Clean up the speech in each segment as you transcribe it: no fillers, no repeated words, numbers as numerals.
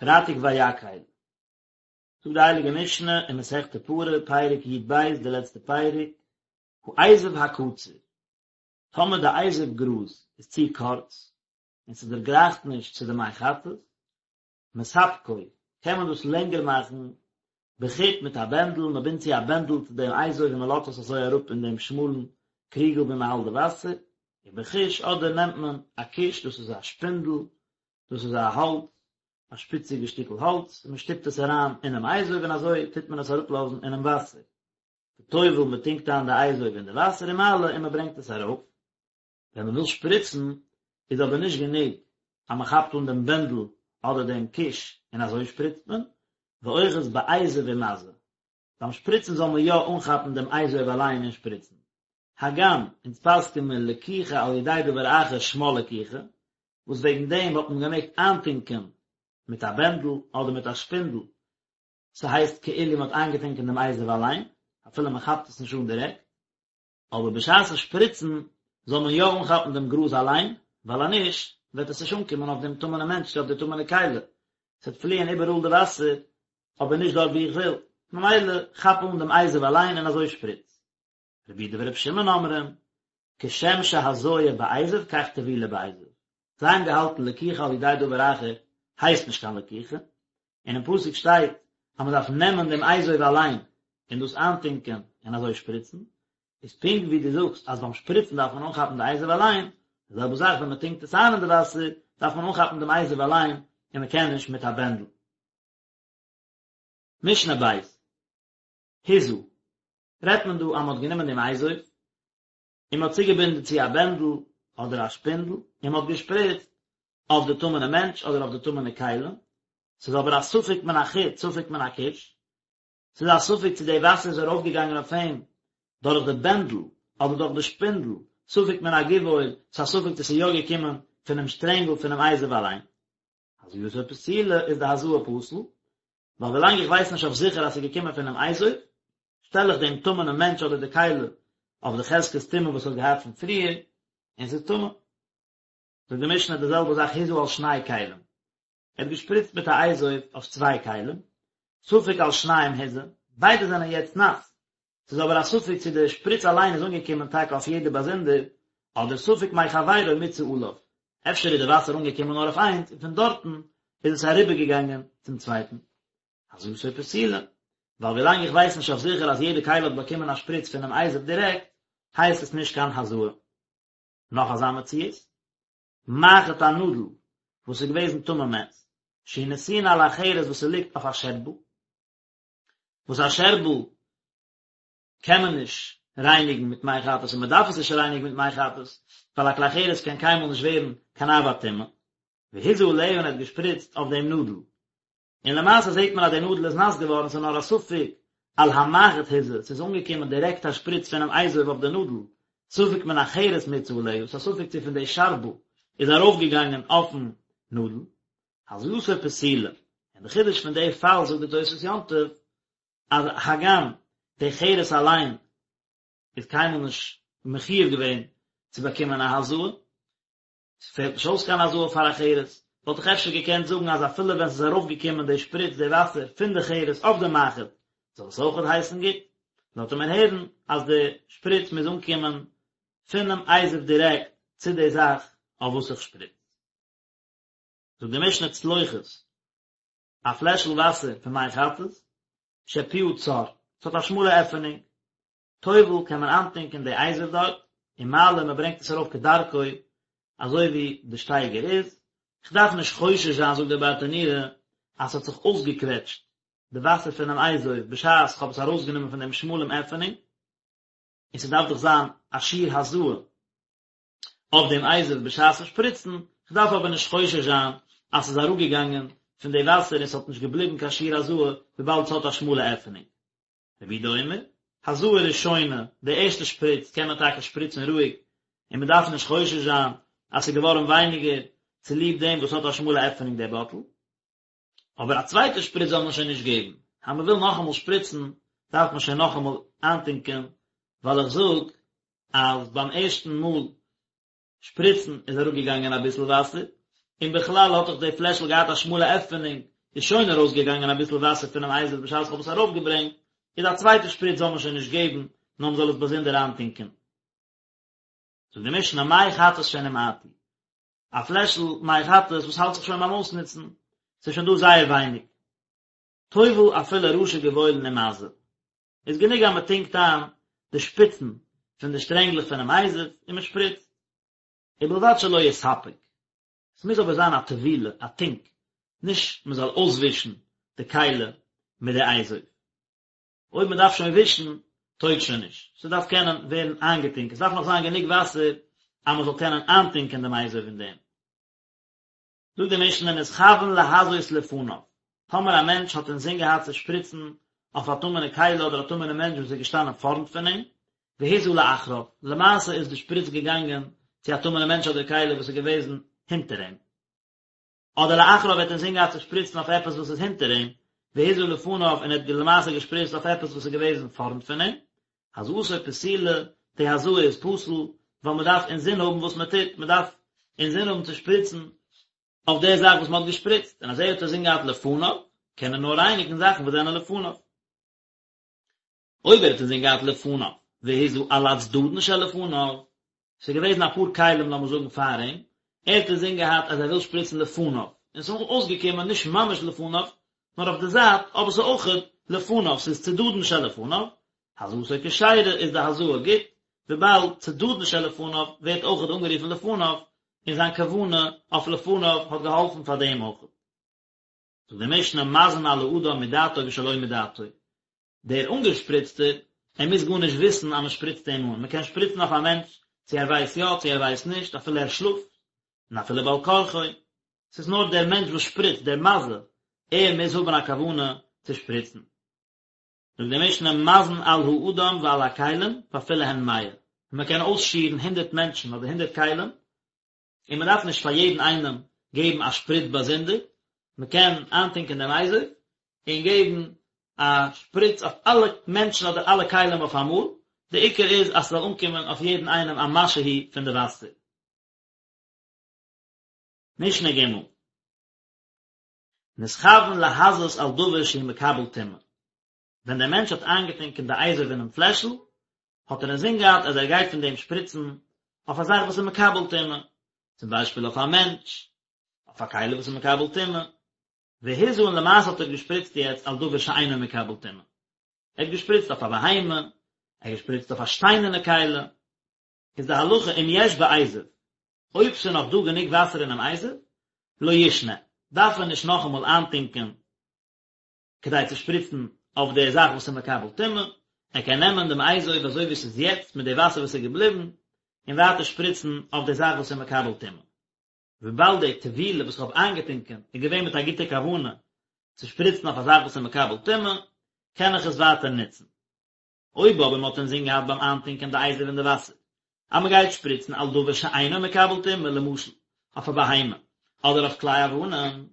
פרייטאג ויקהל. זאגט די הייליגע משנה אין מסכת פרה, פרק י"ב, די לעצטע פרק, האזוב הקצר, טאמער די אזוב גראז איז צו קורץ, און ס'דערגרייכט נישט צו די מי חטאת, מספקו, קען מען דאס לענגער מאכן בחוט מיט א בענדל, מען בינדט צו א בענדל צו דעם אזוב און מען לאזט עס אזוי אראפ אין דעם שמאלן קריגל ווי מען האלט די וואסער, ובכוש, אדער נעמט מען א כוש, דאס איז א שפינדל, דאס איז א האלץ, א שפיציגע שטיקל האלץ, און מען שטופט עס אריין אינעם אזוב און אזוי טוט מען עס אראפלאזן אינעם וואסער. וטובל, מען טונקט איין די אזוב אין די וואסער ומעלה און מען ברענגט עס ארויף. ווען מען וויל שפריצן איז אבער נישט גענוג אז מען כאפט אן דעם בענדל אדער דעם כוש און אזוי שפריצט מען, ואוחז באזוב ומזה. ביים שפריצן זאל מען יא אנכאפן דעם אזוב אליין און שפריצן. הגם אונז פסק'ען מיר לקיחה על ידי דבר אחר שמה לקיחה, וואס וועגן דעם האט מען געמעגט איינטונקען מיט א בענדל אדער מיט א שפינדל, ס'הייסט כאילו מ'האט איינגעטונקען דעם אזוב אליין, אפילו מ'כאפט עס נישט אן דירעקט, אבער בשעת'ן שפריצן זאל מען יא אנכאפן דעם גראז אליין, ווייל אז נישט וועט עס נישט אנקומען אויף דעם טמא'נעם מענטש צו אויף די טמא'נע כלי, ס'וועט פליען איבעראל די וואסער, אבער נישט דארט וואו איך וויל, ממילא כאפ אן דעם אזוב אליין און אזוי שפריץ. רבי יהודה ורבי שמעון אומרים, כשם שהזיה באזוב כך טבילה באזוב. זיי האבן געהאלטן לקיחה על ידי דבר אחר הייסט נישט קיין לקיחה, און אין פסוק שטייט אז מען דארף נעמען דעם אזוב אליין און דאס איינטונקען און אזוי שפריצן, איז פונקט ווי דו זאגסט אז ביים שפריצן דארף מען אנכאפן די אזוב אליין, די זעלבע זאך ווען מען טונקט עס איין אין די וואסער דארף מען אנכאפן דעם אזוב אליין און מען קען נישט מיט א בענדל. משנה בית. הזה, רעדט מען דא אז מען האט גענומען דעם אזוב און מען האט צוגעבינדן צו א בענדל אדער א שפינדל און מען האט געשפריצט אויף די טמא'נע מענטש אדער אויף די טמא'נע כלים, ס'איז אבער א ספק מן החוט ספק מן הכוש, ס'איז א ספק צו די וואסער איז ארויפגעגאנגען אויף אים דורך די בענדל אדער דורך די שפינדל, ספק מן הגבעול, ס'איז א ספק צו ס'איז יא געקומען פונעם שטרענגל פונעם אזוב אליין. הזייתו פסולה איז די הזאה פסול, ווייל ווילאנג איך ווייס נישט אויף זיכער אז ס'איז געקומען פונעם אזוב, שטעל איך דעם טמא'נעם מענטש אדער די כלי אויף די חזקת טומאה וואס האט געהאט פון פריער, און ס'איז טמא. זאגט די משנה די זעלבע זאך הזה על שני כלים, ער האט געשפריצט מיט א אזוב אויף צוויי כלים, ספק על שניהם הזה, ביידע זענען יעצט נאס, ס'איז אבער א ספק צו די שפריץ אליין איז אנגעקומען טאקע אויף יעדע באזונדער, אדער ספק מחבירו מיצה עליו, אפשר איז די וואסער אנגעקומען נאר אויף איינס און פון דארטן איז עס אריבערגעגאנגען צום צווייטן. הזאתו פסולה, ווייל ווילאנג איך ווייס נישט אויף זיכער אז יעדע כלי האט באקומען א שפריץ פונעם אזוב דירעקט, הייסט עס נישט קיין הזאה. נאך אזא מציאות, מחט א נאדל וואס איז געוועזן טמא מת, שהיא נתונה על החרס וואס ס'ליגט אויף א שערבל, וואס א שערבל קען מען נישט רייניגן מיט מי חטאת און מען דארף עס נישט רייניגן מיט מי חטאת, ווייל א כלי חרס קען קיינמאל נישט ווערן קיין אב הטומאה. והזה עליה און ער האט געשפריצט אויף דעם נאדל. און למעשה זעט מען אז די נאדל איז נאס געווארן, ס'איז נאר א ספק על המחט הזה, ס'איז אנגעקומען דירעקט א שפריץ פונעם אזוב אויף די נאדל, ספק מן החרס מיצה עליה, ס'איז א ספק צו פון די שארבל איז ארויפגעגאנגען אויפן נאדל. הזאתו פסולה, און די חידוש פון די פאל זאגט די תוספות יום טוב, אז הגם די חרס אליין איז קיינמאל נישט מחיוב געווען צו באקומען א הזאה, ס'פעלט נישט אויס קיין הזאה פאר א חרס, וואלט איך אפשר געקענט זאגן אז אפילו ווען ס'איז ארויפגעקומען די שפריץ די וואסער פון די חרס אויף די מחט זאל עס אויכעט הייסן גוט, לאזט ער מיר הערן אז די שפריץ מוז אנקומען פונעם אזוב דירעקט צו די זאך אויף וואס איך שפריץ. זאגט די משנה צלוחית, א פלעשל וואסער פון מי חטאת, שפיה צר, ס'האט א שמאלע עפענונג, טובל קען מען איינטונקען די אזוב דארט, ומעלה מען ברענגט עס ארויף כדרכו אזוי ווי די שטייגער איז, כ'דארף נישט חושש זיין זאגט דער ברטנורא אז ס'האט זיך אויסגעקוועטשט די וואסער פונעם אזוב בשעת כ'האב עס ארויסגענומען פון דעם שמאלעם עפענונג, און ס'דארף דאך זיין א שיעור הזאה. אויף דעם אזוב בשעת'ן שפריצן, כ'דארף אבער נישט חושש זיין אז ס'איז אראפגעגאנגען פון די וואסער און ס'האט נישט געבליבן קיין שיעור הזאה וויבאלד ס'האט א שמאלע עפענונג. רבי יהודה אומר, הזאה ראשונה, די ערשטע שפריץ קען מען טאקע שפריצן רואיג און מ'דארף נישט חושש זיין אז ס'איז געווארן ווייניגער צוליב דעם וואס ס'האט א שמאלע עפענונג דער באטל, אבער א צווייטע שפריץ זאל מען שוין נישט געבן, אז מען וויל נאכאמאל שפריצן דארף מען שוין נאכאמאל איינטונקען, ווייל איך זאג אז ביים ערשטן מאל שפריצן איז אראפגעגאנגען אביסל וואסער, און בכלל האט דאך די פלעשל געהאט א שמאלע עפענונג. איז שוין ארויסגעגאנגען אביסל וואסער פונעם אזוב בשעת איך האב עס ארויפגעברענגט, איז א צווייטע שפריץ זאל מען שוין נישט געבן, נאר מען זאל עס באזונדער איינטונקען. זאגט די משנה מי חטאת שנמעטו, א פלעשל מי חטאת וואס האלט זיך שוין ביים אויסנוצן, ס'איז שוין דא זייער ווייניג, טובל אפילו ראשי גבעולין ומזה, איז גענוג אז מען טונקט איין די שפיצן פון די שטרענגלעך פונעם אזוב און מען שפריצט, ובלבד שלא יספג, עס מוז אבער זיין א טבילה, א טונק, נישט מען זאל אויסווישן די כלי מיט די אזוב. אויב מען דארף שוין ווישן, טויג שוין נישט, ס'דארף קענען ווערן איינגעטונקען, ס'דארף נאך זיין גענוג וואסער אז מען זאל קענען איינטונקען דעם אזוב אין דעם. זאגט די משנה נתכוון להזות לפניו, טאמער א מענטש האט אינזין געהאט צו שפריצן אויף א טמא'נע כלי אדער א טמא'נע מענטש וואס איז געשטאנען פארנט פון אים, והזה לאחריו, למעשה איז די שפריץ געגאנגען צו א טמא'נע מענטש אדער כלי וואס איז געוועזן הינטער אים. אדער לאחריו האט אינזין געהאט צו שפריצן אויף עפעס וואס איז הינטער אים, והזה לפניו און ער האט למעשה געשפריצט אויף עפעס וואס איז געוועזן פארנט פון אים, הזאתו פסולה, די הזאה איז פסול, ווייל מען דארף אינזין האבן וואס מען טוט, מען דארף אינזין האבן צו שפריצן אויף די זאך וואס מען האט געשפריצט, און אז ער האט אינזין געהאט לפניו, קען ער נאר רייניגן זאכן וואס זענען לפניו. אויב ער האט אינזין געהאט לפניו, והזה על הצדדין שלפניו, ס'איז געוועזן אפאר כלים לאמיר זאגן פאר אים, ער האט אינזין געהאט אז ער וויל שפריצן לפניו, און ס'איז אויסגעקומען נישט ממש לפניו, נאר אויף די זייט, אבער ס'איז אויכעט לפניו, ס'איז צדדין שלפניו, הזאתו כשרה איז די הזאה גוט, וויבאלד צדדין שלפניו ווערט אויכעט אנגערופן לפניו, און זיין כוונה אויף לפניו האט געהאלפן פאר דעם אויכעט. זאגט די משנה מזין על האדם מדעתו ושלא מדעתו, דער אנגעשפריצטער, ער מוז גארנישט וויסן אז מען שפריצט אים אן, מען קען שפריצן אויף א מענטש צו ער ווייסט יא צו ער ווייסט נישט, אפילו ער שלאפט, און אפילו בעל כרחו, ס'איז נאר דער מענטש וואס שפריצט, דער מזה, ער מוז האבן א כוונה צו שפריצן. זאגט די משנה מזין על האדם ועל הכלים ואפילו הן מאה, מען קען אויסשירן הונדערט מענטשן אדער הונדערט כלים, און מען דארף נישט פאר יעדן איינעם געבן א שפריץ באזונדער, מען קען איינטונקען דעם אזוב און געבן א שפריץ אויף אלע מענטשן אדער אלע כלים אויף אמאל, די עיקר איז אז ס'זאל אנקומען אויף יעדן איינעם א משהו פון די וואסער. משנה ג' נתכוון להזות על דבר שהוא מקבל טומאה, ווען דער מענטש האט איינגעטונקען די אזוב אינעם פלעשל, האט ער אינזין געהאט אז ער גייט פון דעם שפריצן אויף א זאך וואס איז מקבל טומאה, צום ביישפיל אויף א מענטש, אויף א כלי וואס איז מקבל טומאה, והזה און למעשה האט ער געשפריצט יעצט על דבר שאינו מקבל טומאה, ער האט געשפריצט אויף א בהמה, ער האט געשפריצט אויף א שטיינערנע כלי, איז די הלכה אם יש באזוב, אויב ס'איז נאך דא גענוג וואסער אינעם אזוב, לא ישנה, דארף ער נישט נאכאמאל איינטונקען כדי צו שפריצן אויף די זאך וואס איז מקבל טומאה, ער קען נעמען דעם אזוב אזוי ווי ס'איז יעצט מיט די וואסער וואס איז געבליבן, און ווייטער שפריצן אויף די זאך וואס איז מקבל טומאה. וויבאלד די טבילה וואס איך האב איינגעטונקען איז געווען מיט א גוטע כוונה צו שפריצן אויף א זאך וואס איז מקבל טומאה, קען איך עס ווייטער נוצן. אויב אבער מען האט אינזין געהאט ביים איינטונקען די אזוב אין די וואסער אז מען גייט שפריצן על דבר שאינו מקבל טומאה למשל אויף א בהמה אדער אויף כלי אבנים,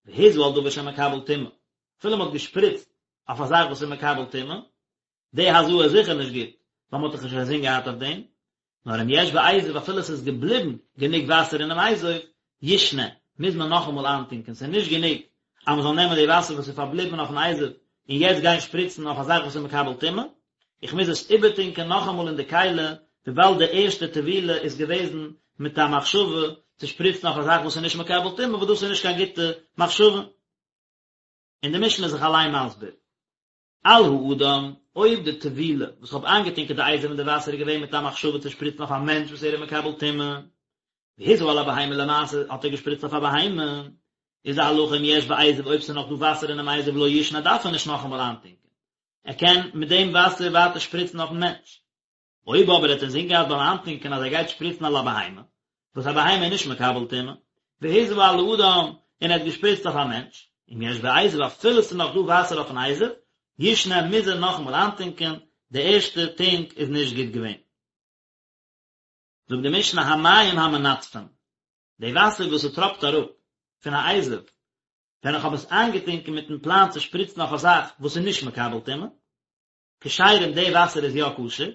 והזה על דבר שמקבל טומאה, אפילו מען האט געשפריצט אויף א זאך וואס איז מקבל טומאה, די הזאה איז זיכער נישט גוט, ווייל מען האט דאך נישט אינזין געהאט אויף דעם, נאר אם יש באזוב אפילו עס איז געבליבן גענוג וואסער אינעם אזוב, ישנה, מוז מען נאכאמאל איינטונקען, ס'איז נישט גענוג אז מען זאל נעמען די וואסער וואס איז פארבליבן אויפן אזוב און יעצט גיין שפריצן אויף א זאך וואס איז מקבל טומאה, איך מוז עס איבערטונקען נאכאמאל אין די כלי, וויבאלד די ערשטע טבילה איז געוועזן מיט א מחשבה צו שפריצן אויף א זאך וואס איז נישט מקבל טומאה, וואס דאס איז נישט קיין גוטע מחשבה. און די משנה איז זיך אליין מסביר. על האדם, אויב די טבילה וואס כ'האב איינגעטונקען די אזוב אין די וואסער איז געווען מיט א מחשבה צו שפריצן אויף א מענטש וואס ער איז מקבל טומאה, והזה על הבהמה למעשה האט ער געשפריצט אויף א בהמה, איז די הלכה אם יש באזוב אויב ס'איז נאך דא וואסער אינעם אזוב לא ישנה דארף ער נישט נאכאמאל איינטונקען, ער קען מיט דעם וואסער ווייטער שפריצן אויפן מענטש. אויב אבער ער האט אינזין געהאט ביים איינטונקען אז ער גייט שפריצן על הבהמה, וואס א בהמה איז נישט מקבל טומאה, והזה על האדם, און ער האט געשפריצט אויף א מענטש, אם יש באזוב אפילו ס'איז נאך דא וואסער אויפן אזוב, ישנה מוז ער נאכאמאל איינטונקען, די ערשטע טונק איז נישט גוט געווען. זאגט די משנה המים המנטפין, די וואסער וואס ס'טראפט אראפ פון א אזוב, ווען איך האב עס איינגעטונקען מיטן פלאן צו שפריצן אויף א זאך וואס איז נישט מקבל טומאה, כשרים די וואסער איז יא כשר,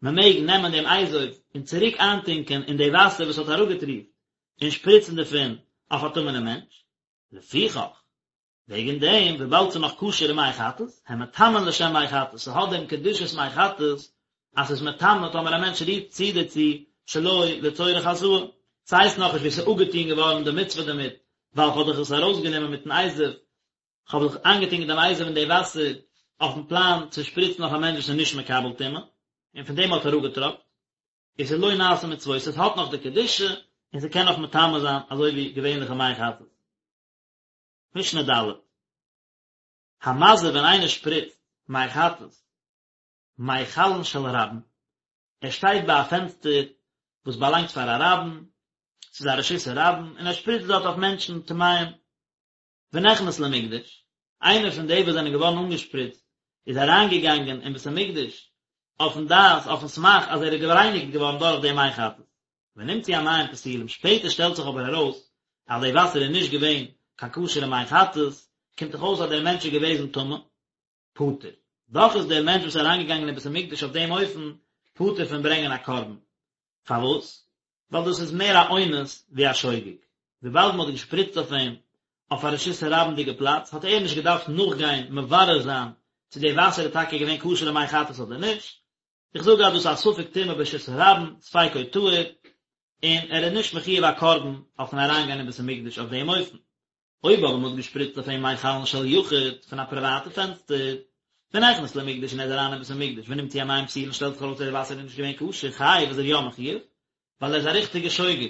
מען מעג נעמען דעם אזוב און צוריק איינטונקען אין די וואסער וואס האט אראפגעטריפט און שפריצן דערפון אויף א טמא'נעם מענטש, לפיכך. וועגן דעם, וויבאלד ס'איז נאך כשר'ע מי חטאת, הן מטמאין לשם מי חטאת, ס'האט דעם קדושת מי חטאת, אז ס'איז מטמא טאמער א מענטש רירט צו דערצו שלא לצורך הזאה. ס'הייסט נאכנישט ווי ס'איז אפגעטון געווארן די מצוה דערמיט, ווייל כ'האב דאך עס ארויסגענומען מיטן אזוב, כ'האב דאך איינגעטונקען דעם אזוב אין די וואסער אויפן פלאן צו שפריצן אויף א מענטש וואס איז נישט מקבל טומאה, און פון דעם האט אראפגעטראפט. עס איז לא נעשה מצוותו, עס האט נאך די קדושה, און ס'קען נאך מטמא זיין אזוי ווי געווענליכע מי חטאת. משנה ד'. המזה ווען איינער שפריצט מי חטאת מחלון של רבים, ער שטייט ביי א פענסטער וואס באלאנגט פאר א רבים, ס'איז א רשות הרבים, און ער שפריצט דארט אויף מענטשן טמאים, ונכנס למקדש, איינער פון די וואס זענען געווארן אנגעשפריצט איז אריינגעגאנגען אין בית המקדש אויפן דעת, אויפן סמך אז ער איז גערייניגט געווארן דורך דעם מי חטאת. ונמצאו המים פסולים, שפעטער שטעלט זיך אבער ארויס אז די וואסער איז נישט געווען קיין כשר'ע מי חטאת, קומט דאך אויס אז דער מענטש איז געוועזן טמא, פטור. דאך איז דער מענטש וואס איז אריינגעגאנגען אין בית המקדש אויף דעם אופן פטור פון ברענגען א קרבן. פארוואס? ווייל דאס איז מער א אונס ווי א שוגג. וויבאלד מען האט געשפריצט אויף אים אויף א רשות הרבים'דיגע פלאץ, האט ער נישט געדארפט נאכגיין מברר זיין צו די וואסער איז טאקע געווען כשר'ע מי חטאת אדער נישט. איך זאג אז דאס איז א ספק טומאה ברשות הרבים, ספיקו טהור, און ער איז נישט מחויב א קרבן אויפן אריינגיין אין בית המקדש אויף דעם אופן. אויב אבער מ'האט געשפריצט אויף אים מחלון של יחיד פון א פריוואטע פענסטער, ונכנס למקדש און ער איז אריין אין בית המקדש ונמצאו המים פסולין שטעלט זיך ארויס אז די וואסער איז נישט געווען כשר חייב איז ער יא מחויב, ווייל ער איז א ריכטיגע שוגג,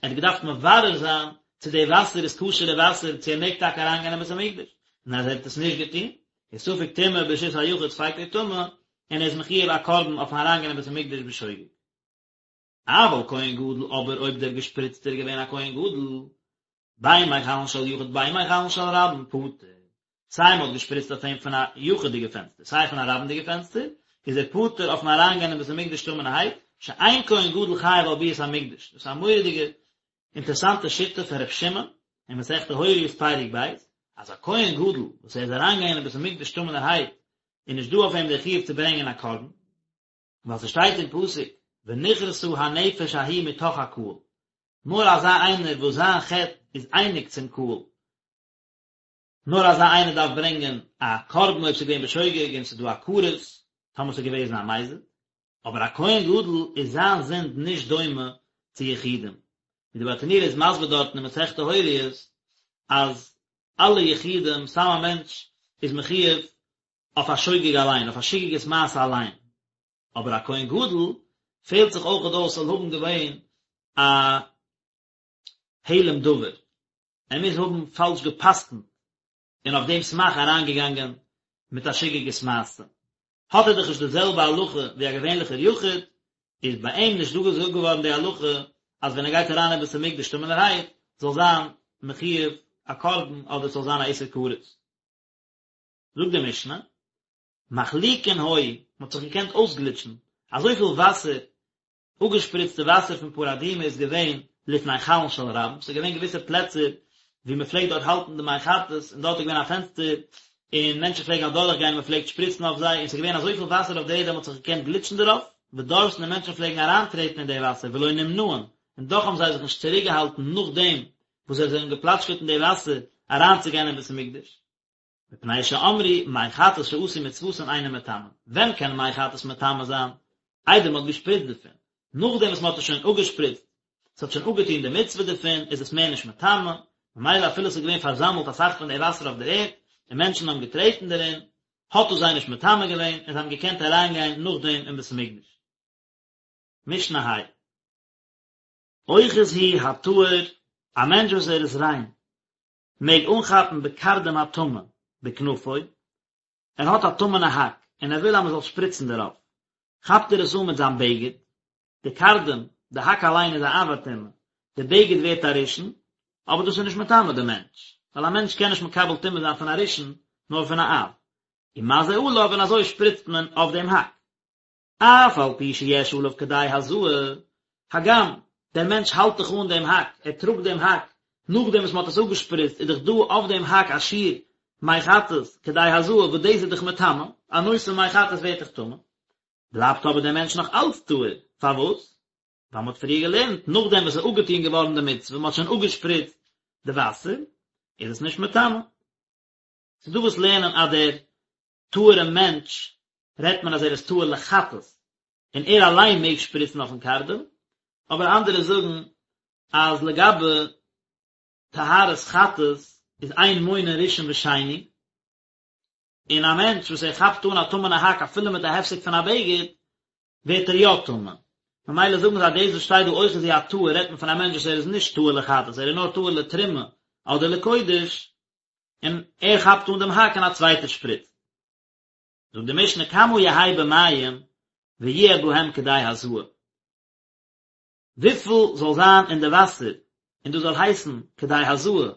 ער האט געדארפט מברר זיין צו די וואסער איז כשר'ע וואסער צו ער מעג טאקע אריינגיין אין בית המקדש, און אז ער האט עס נישט געטון, איז ספק טומאה ברשות היחיד ספיקו טמא, און ער איז מחויב א קרבן אויפן אריינגיין אין בית המקדש בשוגג. אבל כהן גדול אבער אויב דער געשפריצטער איז געווען א כהן גדול, בין מחלון של יחיד בין מחלון של רבים פטור, סיי מ'האט געשפריצט אויף אים פון א יחיד'יגע פענסטער סיי פון א רבים'דיגע פענסטער, איז ער פטור אויפן אריינגיין אין בית המקדש טמא'נערהייט, שאין כהן גדול חייב על ביאת המקדש, דאס איז א מורא'דיגע אינטערעסאנטע שיטה פון ר' שמעון אין מסכת הוריות פרק ב', אז א כהן גדול וואס ער איז אריינגעגאנגען אין בית המקדש טמא'נערהייט איז נישט דא אויף אים דער חיוב צו ברענגען א קרבן, ווייל ס'שטייט אין פסוק ונכרתה הנפש ההיא מתוך הקהל, נאר אזא איינער וואס זיין חטא איז אייניג צום קהל, נאר אזא איינער דארף ברענגען א קרבן אויב ס'איז געווען בשוגג און ס'איז דא א כרת, טאמער ס'איז געוועזן א מזיד, אבער א כהן גדול איז זיין זינד נישט דומה צו יחידים, ווי די ברטנורא איז מסביר דארטן אין מסכת הוריות אז אלע יחידים, סתם א מענטש איז מחויב אויף א שוגג אליין, אויף א שגגת מעשה אליין, אבער א כהן גדול פעלט זיך אויכעט אויס ס'זאל האבן געווען א העלם דבר, ער מוז האבן פאלש גע'פסק'נט און אויף דעם סמך אריינגעגאנגען מיט א שגגת מעשה, האט ער דאך נישט די זעלבע הלכה ווי א געווענליכער יחיד, איז ביי אים נישט דא געזאגט געווארן די הלכה אז ווען ער גייט אריין אין בית המקדש טמא'נערהייט זאל זיין מחויב א קרבן אדער ס'זאל זיין א איסור כרת. זאגט די משנה, מחליקין היו, מען האט זיך געקענט אויסגליטשן, אזויפיל וואסער, אפגעשפריצטע וואסער פון פרה אדומה איז געווען לפני חלון של רבים, ס'איז געווען געוויסע פלעצער וואו מען פלעגט דארט האלטן די מי חטאת, און דארט איז געווען א פענסטער, און מענטשן פלעגן אדורך גיין און מען פלעגט שפריצן אויף זיי, און ס'איז געווען אזויפיל וואסער אויף די ערד אז מען האט זיך געקענט גליטשן דערויף, ודורסין און מענטשן פלעגן אריינטרעטן אין די וואסער ולא נמנעין, און דאך האבן זיי זיך נישט צוריקגעהאלטן נאכדעם וואס זיי זענען געפלאטשקעט אין די וואסער אריינצוגיין אין בית המקדש. מפני שאמרו מי חטאת שעשו מצוותן אינן מטמאין, ווען קען מי חטאת מטמא זיין? איידער מען האט געשפריצט דערפון, נאכדעם וואס מען האט עס שוין אפגעשפריצט, עס האט שוין אפגעטון די מצוה דערפון, איז עס מער נישט מטמא, ממילא אפילו עס איז געווען פארזאמלט אסאך פון די וואסער אויף דער ערד, און מענטשן האבן געטרעטן דערין, האט דאס זיי נישט מטמא געווען, און זיי האבן געקענט אריינגיין נאכדעם אין בית המקדש. משנה ה'. אוחז הוא הטהור, א מענטש וואס ער איז ריין, מעג אנכאפן בקרדום הטמא בכנפו, ער האט א טמא'נע האק און ער וויל אז מען זאל שפריצן דערויף, כאפט ער עס אן מיט זיין בגד, די קרדום, די האק אליין איז א אב הטומאה, די בגד ווערט א ראשון, אבער דאס איז נישט מטמא די מענטש, ווייל א מענטש קען נישט מקבל טומאה זיין פון א ראשון, נאר פון א אב. ומזה עליו און אזוי שפריצט מען אויף דעם האק. אף על פי שיש עליו כדי הזאה, הגם דער מענטש האלט דאך אן דעם האק, ער טראגט דעם האק, נאכדעם וואס מען האט עס אפגעשפריצט איז דאך דא אויף דעם האק א שיעור מי חטאת כדי הזאה וואס דאס איז דאך מטמא, א נושא מי חטאת ווערט דאך טמא, בלייבט אבער דער מענטש נאך אלץ טהור, פארוואס? ווייל מען האט פריער געלערנט, נאכדעם וואס עס איז אפגעטון געווארן די מצוה, מען האט שוין אפגעשפריצט די וואסער, איז עס נישט מטמא. ס'איז דא וואס לערנען אז דער טהור'ע מענטש רעדט מען אז ער איז טהור לחטאת, און ער אליין מעג שפריצן אויפן קרדום, אבער אנדערע זאגן אז לגבי טהרת חטאת איז אין מונין ראשון ושני, און א מענטש וואס ער כאפט אן א טמא'נע האק אפילו מיט א הפסק פון א בגד, ווערט ער יא טמא. ממילא זאגן זיי דאס וואס שטייט דא אוחזו הטהור רעדט מען פון א מענטש וואס ער איז נישט טהור לחטאת ער איז נאר טהור לתרומה אדער לקודש, און ער כאפט אן דעם האק און א צווייטער שפריצט. זאגט די משנה כמה יהא במים ויהיה בהם כדי הזאה. וויפיל זאל זיין אין די וואסער און דאס זאל הייסן כדי הזאה,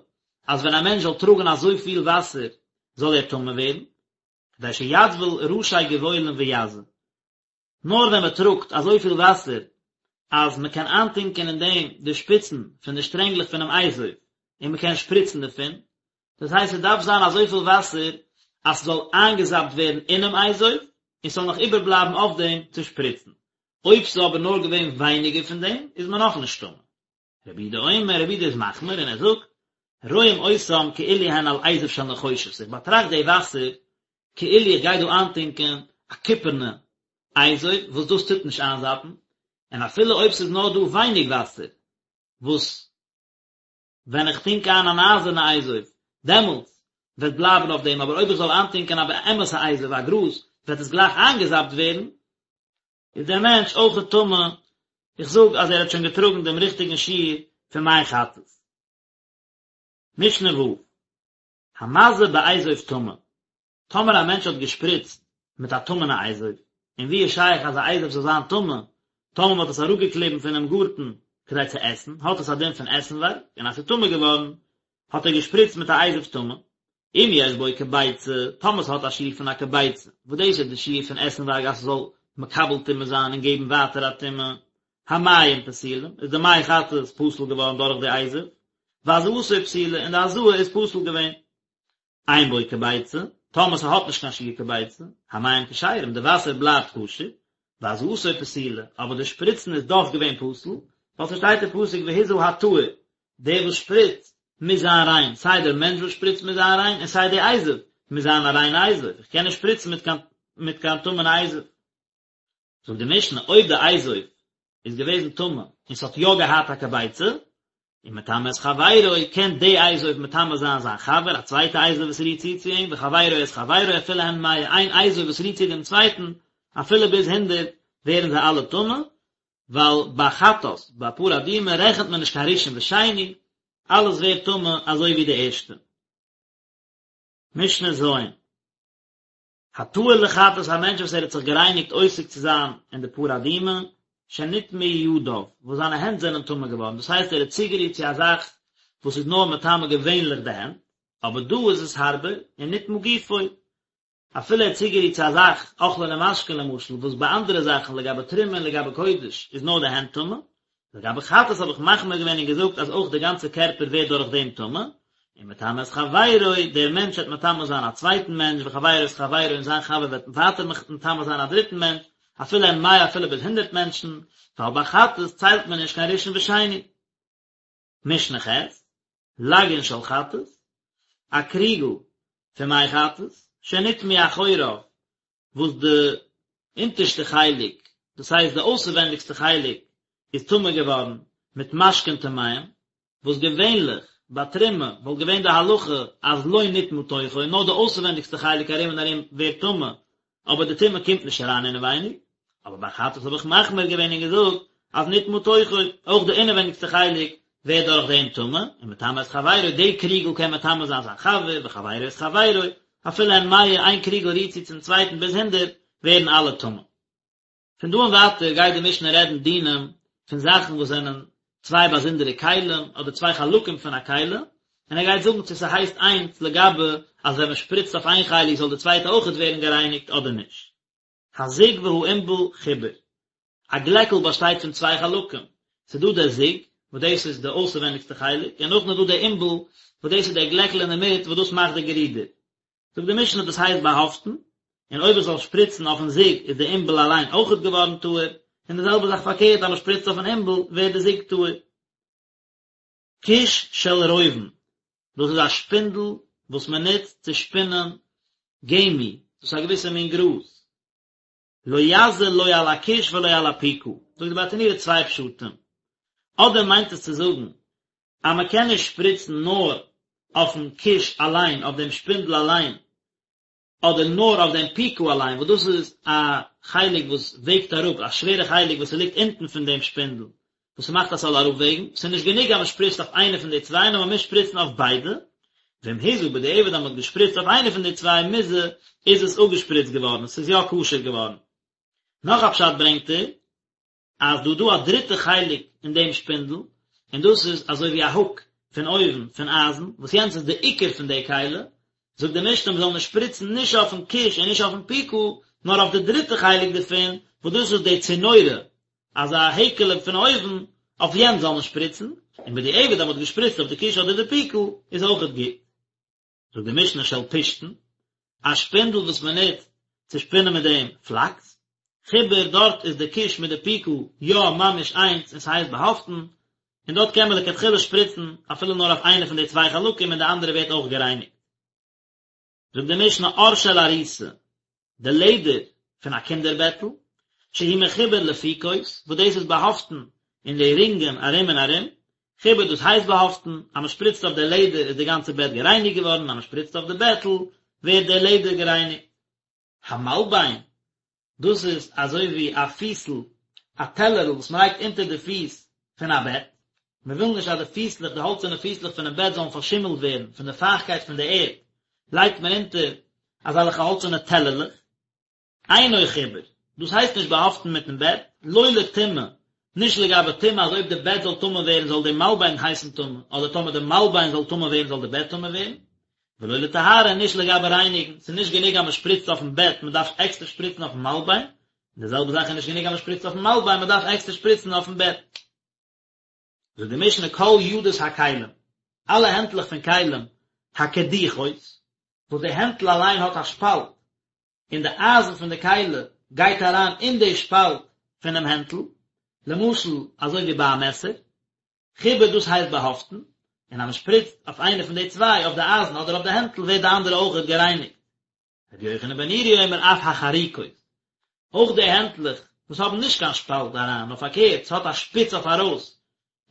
אז ווען א מענטש זאל טראגן אזויפיל וואסער זאל ער טמא ווערן, כדי שיטביל ראשי גבעולין ויזה. נאר ווען מען טראגט אזויפיל וואסער אז מען קען איינטונקען אין דעם די שפיצן פון די שטרענגלעך פונעם אזוב און מען קען שפריצן דערפון, דאס הייסט ס'דארף זיין אזויפיל וואסער אז ס'זאל איינגעזאפט ווערן אינעם אזוב און ס'זאל נאך איבערבלייבן אויף דעם צו שפריצן. אויב ס'איז אבער נאר געווען ווייניגער פון דעם איז מען נאכנישט טמא. רבי יהודה אומר, רבי יהודה איז מחמיר און ער זאגט, רואים אותם כאילו הן על אזוב של נחושת, איך באטראכט די וואסער כאילו איך גיי דא איינטונקען א קופערנע אזוב וואס דאס טוט נישט איינזאפן, און אפילו אויב ס'איז נאר דא ווייניג וואסער וואס ווען איך טונק איין אן אייזערנע אזוב דעמאלטס וועט בלייבן אויף דעם, אבער אויב איך זאל איינטונקען א אמת'ע אזוב א גראז וועט עס גלייך איינגעזאפט ווערן, איז דער מענטש אויכעט טמא, איך זאג אז ער האט שוין געטראגן דעם ריכטיגן שיעור פון מי חטאת. משנה ו', המזה באזוב טמא, טאמער א מענטש האט געשפריצט מיט א טמא'נע אזוב, און ווי איז שייך אז א אזוב זאל זיין טמא, טאמער מען האט עס אראפגעקליבן פונעם גארטן כדי צו עסן, האט עס א דין פון עסנווארג, און אז ס'איז טמא געווארן, האט ער געשפריצט מיט א אזוב טמא, אם יש בו כביצה, טאמער ס'האט א שיעור פון א כביצה, וואס דאס איז די שיעור פון עסנווארג אז ס'זאל מקבל טומאה זיין און געבן ווייטער א טומאה, המים פסולים, איז די מי חטאת פסול געווארן דורך די אזוב, והזאתו פסולה, און די הזאה איז פסול געווען. אין בו כביצה, טאמער ס'האט נישט קיין שיעור כביצה, המים כשרים, די וואסער בלייבט כשר, והזאתו פסולה, אבער די שפריצן איז דאך געווען פסול, ווייל ס'שטייט אין פסוק והזה הטהור, דער וואס שפריצט מוז זיין ריין, סיי דער מענטש וואס שפריצט מוז זיין ריין, און סיי די אזוב מוז זיין א ריינע אזוב, איך קען נישט שפריצן מיט קיין מיט קיין טמא'נע אזוב. זאגט די משנה, אויב די אזוב איז געוועזן טמא און ס'האט יא געהאט א כביצה, ומטמא את חברו, קען די אזוב מטמא זיין זיין חבר, א צווייטע אזוב וואס רירט צו צו אים, וחברו את חברו אפילו הן מאה, איין אזוב וואס רירט צו דעם צווייטן, אפילו ביז הונדערט, ווערן זיי אלע טמא, ווייל ביי חטאת, ביי פרה אדומה, רעכנט מען נישט קיין ראשון ושני, אלעס ווערט טמא אזוי ווי די ערשטע. משנה ז'. הטהור לחטאת א מענטש וואס ער האט זיך גערייניגט עוסק צו זיין אין די פרה אדומה, שנטמאו ידיו, וואס זיינע הענט זענען טמא געווארן, דאס הייסט ער האט צוגערירט צו א זאך וואס איז נאר מטמא געווענליך די הענט, אבער דא איז עס הארבער, ונטמא גופו, אפילו ער האט צוגערירט צו א זאך, אוכלין ומשקין למשל, וואס ביי אנדערע זאכן לגבי תרומה און לגבי קודש איז נאר די הענט טמא, לגבי חטאת האב איך מחמיר געווען און געזאגט אז אויך די גאנצע קערפער ווערט דורך דעם טמא, ומטמא את חברו, דער מענטש וועט מטמא זיין א צווייטן מענטש, וחברו את חברו און זיין חבר וועט ווייטער מטמא זיין א דריטן מענטש, אפילו הן מאה אפילו ביז הונדערט מענטשן, ווייל ביי חטאת ציילט מען נישט קיין ראשון ושני. משנה ח', לגין של חטאת, א קריגל פון מי חטאת, שנטמאו אחוריו, וואס די אונטערשטע חלק, דאס הייסט די אויסערווענדיגסטע חלק, איז טמא געווארן מיט משקין טמאים, וואס געווענליך ביי תרומה וואלט געווען די הלכה אז לא נטמא תוכו, נאר די אויסערווענדיגסטע חלק ארום און ארום ווערט טמא, אבער די טומאה קומט נישט אריין אינעווייניג, אבער ביי חטאת האב איך מחמיר געווען און געזאגט אז נטמא תוכו, אויך די אינעווייניגסטע חלק ווערט דורך דעם טמא, ומטמא את חברו, די קריגל קען מטמא זיין זיין חבר, וחברו את חברו, אפילו הן מאה, איין קריגל רירט צו צום צווייטן ביז הונדערט, ווערן אלע טמא. פון דא און ווייטער גייט די משנה רעדן דינים פון זאכן וואס זענען צוויי באזונדערע כלים אדער צוויי חלקים פון א כלי, און ער גייט זאגן צו ס'הייסט איינס לגבי אז ווען מ'שפריצט אויף איין חלק זאל די צווייטע אויכעט ווערן גערייניגט אדער נישט. הזוג והעינבל חיבור. א גלעקל באשטייט פון צוויי חלקים, ס'איז דא דער זוג, וואס דאס איז די אויסערווענדיגסטע חלק, און נאכדעם איז דא דער עינבל, וואס דאס איז דער גלעקל אינדערמיט וואס דאס מאכט די גערודער. זאגט די משנה דאס הייסט באהאפטן, און אויב איך זאל שפריצן אויפן זוג איז די עינבל אליין אויכעט געווארן טהור, און די זעלבע זאך פארקערט אז מען שפריצט אויפן עינבל ווערט די זוג טהור. כוש של רובין, דאס איז א שפינדל. וואס מען נוצט צו שפינען גמי, דאס איז א געוויסע מין גראז. לא יזה לא על הכוש ולא על הפיקה, זאגט די ברטנורא צוויי פשטים, אדער מיינט עס צו זאגן אז מען קען נישט שפריצן נאר אויפן כוש אליין, אויף דעם שפינדל אליין, אדער נאר אויף דעם פיקה אליין, וואס דאס איז א חלק וואס וועגט אראפ, א שווערע חלק וואס ס'ליגט אונטן פון דעם שפינדל, וואס ס'מאכט אז ס'זאל אראפוועגן, ס'איז נישט גענוג אז מ'שפריצט אויף איינע פון די צוויי, נאר מ'מוז שפריצן אויף ביידע, ואם הזה בדיעבד אז מ'האט געשפריצט אויף איינע פון די צוויי מוזה, איז עס אפגעשפריצט געווארן, ס'איז יא כשר געווארן. נאך א פשט ברענגט ער, אז דא דא א דריטע חלק אין דעם שפינדל, און דאס איז אזוי ווי א הוק פון אויבן פון אייזן, וואס יענץ איז די עיקר פון די כלי, זאגט די משנה מ'זאל נישט שפריצן נישט אויפן כוש און נישט אויפן פיקה, נאר אויף די דריטע חלק דערפון, וואס דאס איז די צינורא, אזא העקעלע פון אויבן, אויף יענץ זאל מען שפריצן, און בדיעבד אז מ'האט געשפריצט אויף די כוש אדער די פיקה, איז אויכעט גוט. זאגט די משנה של פשתן, א שפינדל וואס מען נוצט צו שפינען מיט דעם פלאקס, חיבור דארט איז די כוש מיט די פיקה יא ממש איינס און ס'הייסט באהאפטן, און דארט קען מען לכתחילה שפריצן אפילו נאר אויף איינע פון די צוויי חלקים און די אנדערע ווערט אויך גערייניגט. זאגט די משנה עור של עריסה, די לעדער פון א קינדער בעטל, שהוא מחובר לפיקות, וואס דאס איז באהאפטן אין די רינגען ארום און ארום, חיבור דאס הייסט באהאפטן, אז מען שפריצט אויף די לעדער איז די גאנצע בעט גערייניגט געווארן, אז מען שפריצט אויף די בעטל ווערט די לעדער גערייניגט. המלבן, דאס איז אזוי ווי א פיסל, א טעלערל וואס מען לייגט אונטער די פיס פון א בעט, מען וויל נישט אז די פיסלעך, די האלצערנע פיסלעך פונעם בעט זאלן פארשימלט ווערן פון די פייכטקייט פון די ערד, לייגט מען אונטער אזעלכע האלצערנע טעלערלעך. אינו חיבור, דאס הייסט נישט באהאפטן מיטן בעט, לא לטומאה, נישט לגבי טומאה אז אויב די בעט זאל טמא ווערן זאל די מלבן הייסן טמא, אדער טאמער די מלבן זאל טמא ווערן זאל די בעט טמא ווערן, ולא לטהרה נישט לגבי רייניגן, ס'איז נישט גענוג אז מען שפריצט אויפן בעט, מען דארף עקסטער שפריצן אויפן מלבן, און די זעלבע זאך איז נישט גענוג אז מען שפריצט אויפן מלבן, מען דארף עקסטער שפריצן אויפן בעט. זאגט די משנה כל ידות הכלים, אלע הענטלעך פון כלים, הקדוחות, וואס די הענטל אליין האט א שפאלט, און די אייזן פון די כלי גייט אריין אין די שפאלט פונעם הענטל, למשל אזוי ווי ביי א מעסער, חיבור דאס הייסט באהאפטן, און אז מען שפריצט אויף איינע פון די צוויי, אויף די אייזן אדער אויף די הענטל, ווערט די אנדערע אויכעט גערייניגט. רבי יוחנן בן נורי אומר אף החרוקות, אויך די הענטלעך וואס האבן נישט קיין שפאלט אריין, נאר פארקערט, ס'האט א שפיץ אויף ארויס,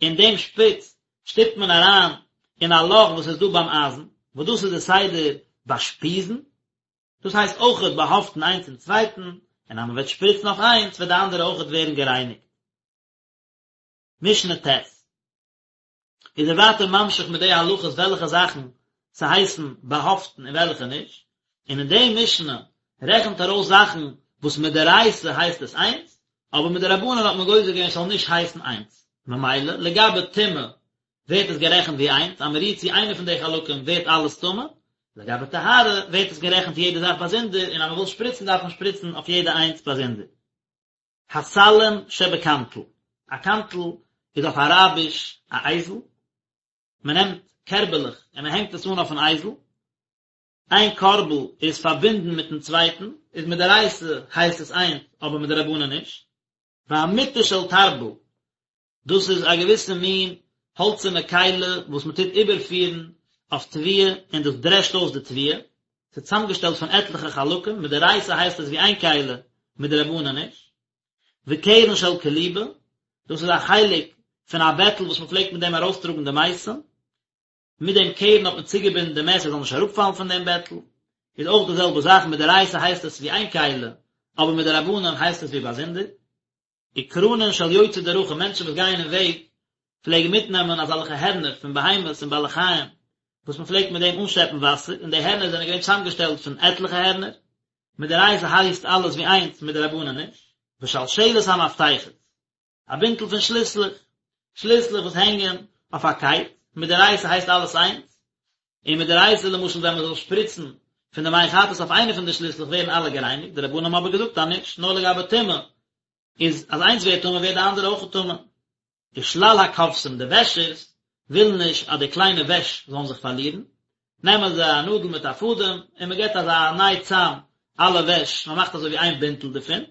און דעם שפיץ שטופט מען אריין אין א לאך וואס איז דא ביים אייזן, וואס דאס איז די סדר ביי שפיזן, דאס הייסט אויכעט באהאפטן איינס צום צווייטן, און אז מען וועט שפריצן אויף איינס וועט די אנדערע אויכעט ווערן גערייניגט. משנה ט' איז ער ווייטער ממשיך מיט די הלכות וועלכע זאכן ס'הייסן באהאפטן און וועלכע נישט, און אין די משנה רעכנט ער אויס זאכן וואס מדאורייתא הייסט עס איינס, אבער מדרבנן האט מען גוזר געווען ס'זאל נישט הייסן איינס, ממילא לגבי טומאה ווערט עס גערעכנט ווי איינס, אז מ'רירט צו איינע פון די חלקים ווערט אלעס טמא, לגבי טהרה ווערט עס גערעכנט יעדע זאך באזונדער, און אז מ'וויל שפריצן דארף מען שפריצן אויף יעדע איינס באזונדער. הסלים שבקנטל, א קנטל איז אויף אראביש א אייזל, מען נעמט קערבעלעך און מען הענגט עס אן אויפן אייזל, איין קארבל איז פארבינדן מיטן צווייטן, איז מדאורייתא הייסט עס איינס אבער מדרבנן נישט. והמטה של תרבל, דאס איז א געוויסע מין האלצערנע כלי וואס מען טוט איבערפירן אויף תבואה און דאס דרעשט אויס די תבואה, ס'איז צוזאמגעשטעלט פון עטליכע חלקים, מדאורייתא הייסט עס ווי איין כלי, מדרבנן נישט. וקרן של כליבה, דאס איז א חלק פון א בעטל וואס מען פלעגט מיט דעם ארויסטראגן די מתים, מיט דעם קרן האט מען צוגעבינדן די מת ער זאל נישט אראפפאלן פון דעם בעטל, איז אויך די זעלבע זאך, מדאורייתא הייסט עס ווי איין כלי, אבער מדרבנן הייסט עס ווי באזונדער. וקרנין של יוצאי דרכים, מענטשן וואס גייען אין וועג, פלעגן מיטנעמען אזעלכע הערנער פון בהמות און בעלי חיים, וואס מען פלעגט מיט דעם אנשעפן וואסער, און די הערנער זענען געווען צוזאמגעשטעלט פון עטליכע הערנער, מדאורייתא הייסט אלעס ווי איינס, מדרבנן נישט. ושלשלת המפתחות, א בינטל פון שליסלעך, שליסלעך וואס הענגען אויף א קייט, מדאורייתא הייסט אלעס איינס, און מדאורייתא למשל ווען מען זאל שפריצן פון די מי חטאת אויף איינע פון די שליסלעך ווערן אלע גערייניגט, די רבנן האבן אבער געזאגט אז נישט, נאר לגבי טומאה, איז אז איינס ווערט טמא ווערט די אנדערע אויך טמא. ושלל הכובסים, די וועשערס ווילן נישט אז די קליינע וועש זאלן זיך פארלירן, נעמען זיי א נאדל מיט א פאדעם און מען געבט אזא ניי צאם אלע וועש, מען מאכט אזוי ווי איין בינטל דערפון.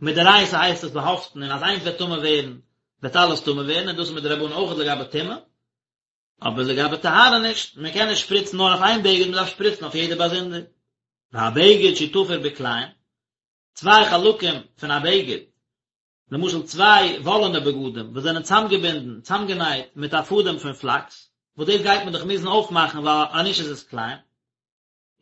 מדאורייתא הייסט עס באהאפטן און אז איינס וועט טמא ווערן וועט אלעס טמא ווערן און דאס איז מדרבנן אויך לגבי טומאה. אבער לגבי טהרה נישט, מען קען נישט שפריצן נאר אויף איין בגד, מען דארף שפריצן אויף יעדע באזונדער. והבגד שהוא תפור בכלאים, צוויי חלקים פון א בגד, למשל צוויי וואלענע בגדים וואס זענען צאמגעבינדן, צאמגענייט מיט א פאדעם פון פלאקס, וואס דאס גייט מען דאך מוזן אויפמאכן ווייל אנישט איז עס כלאים.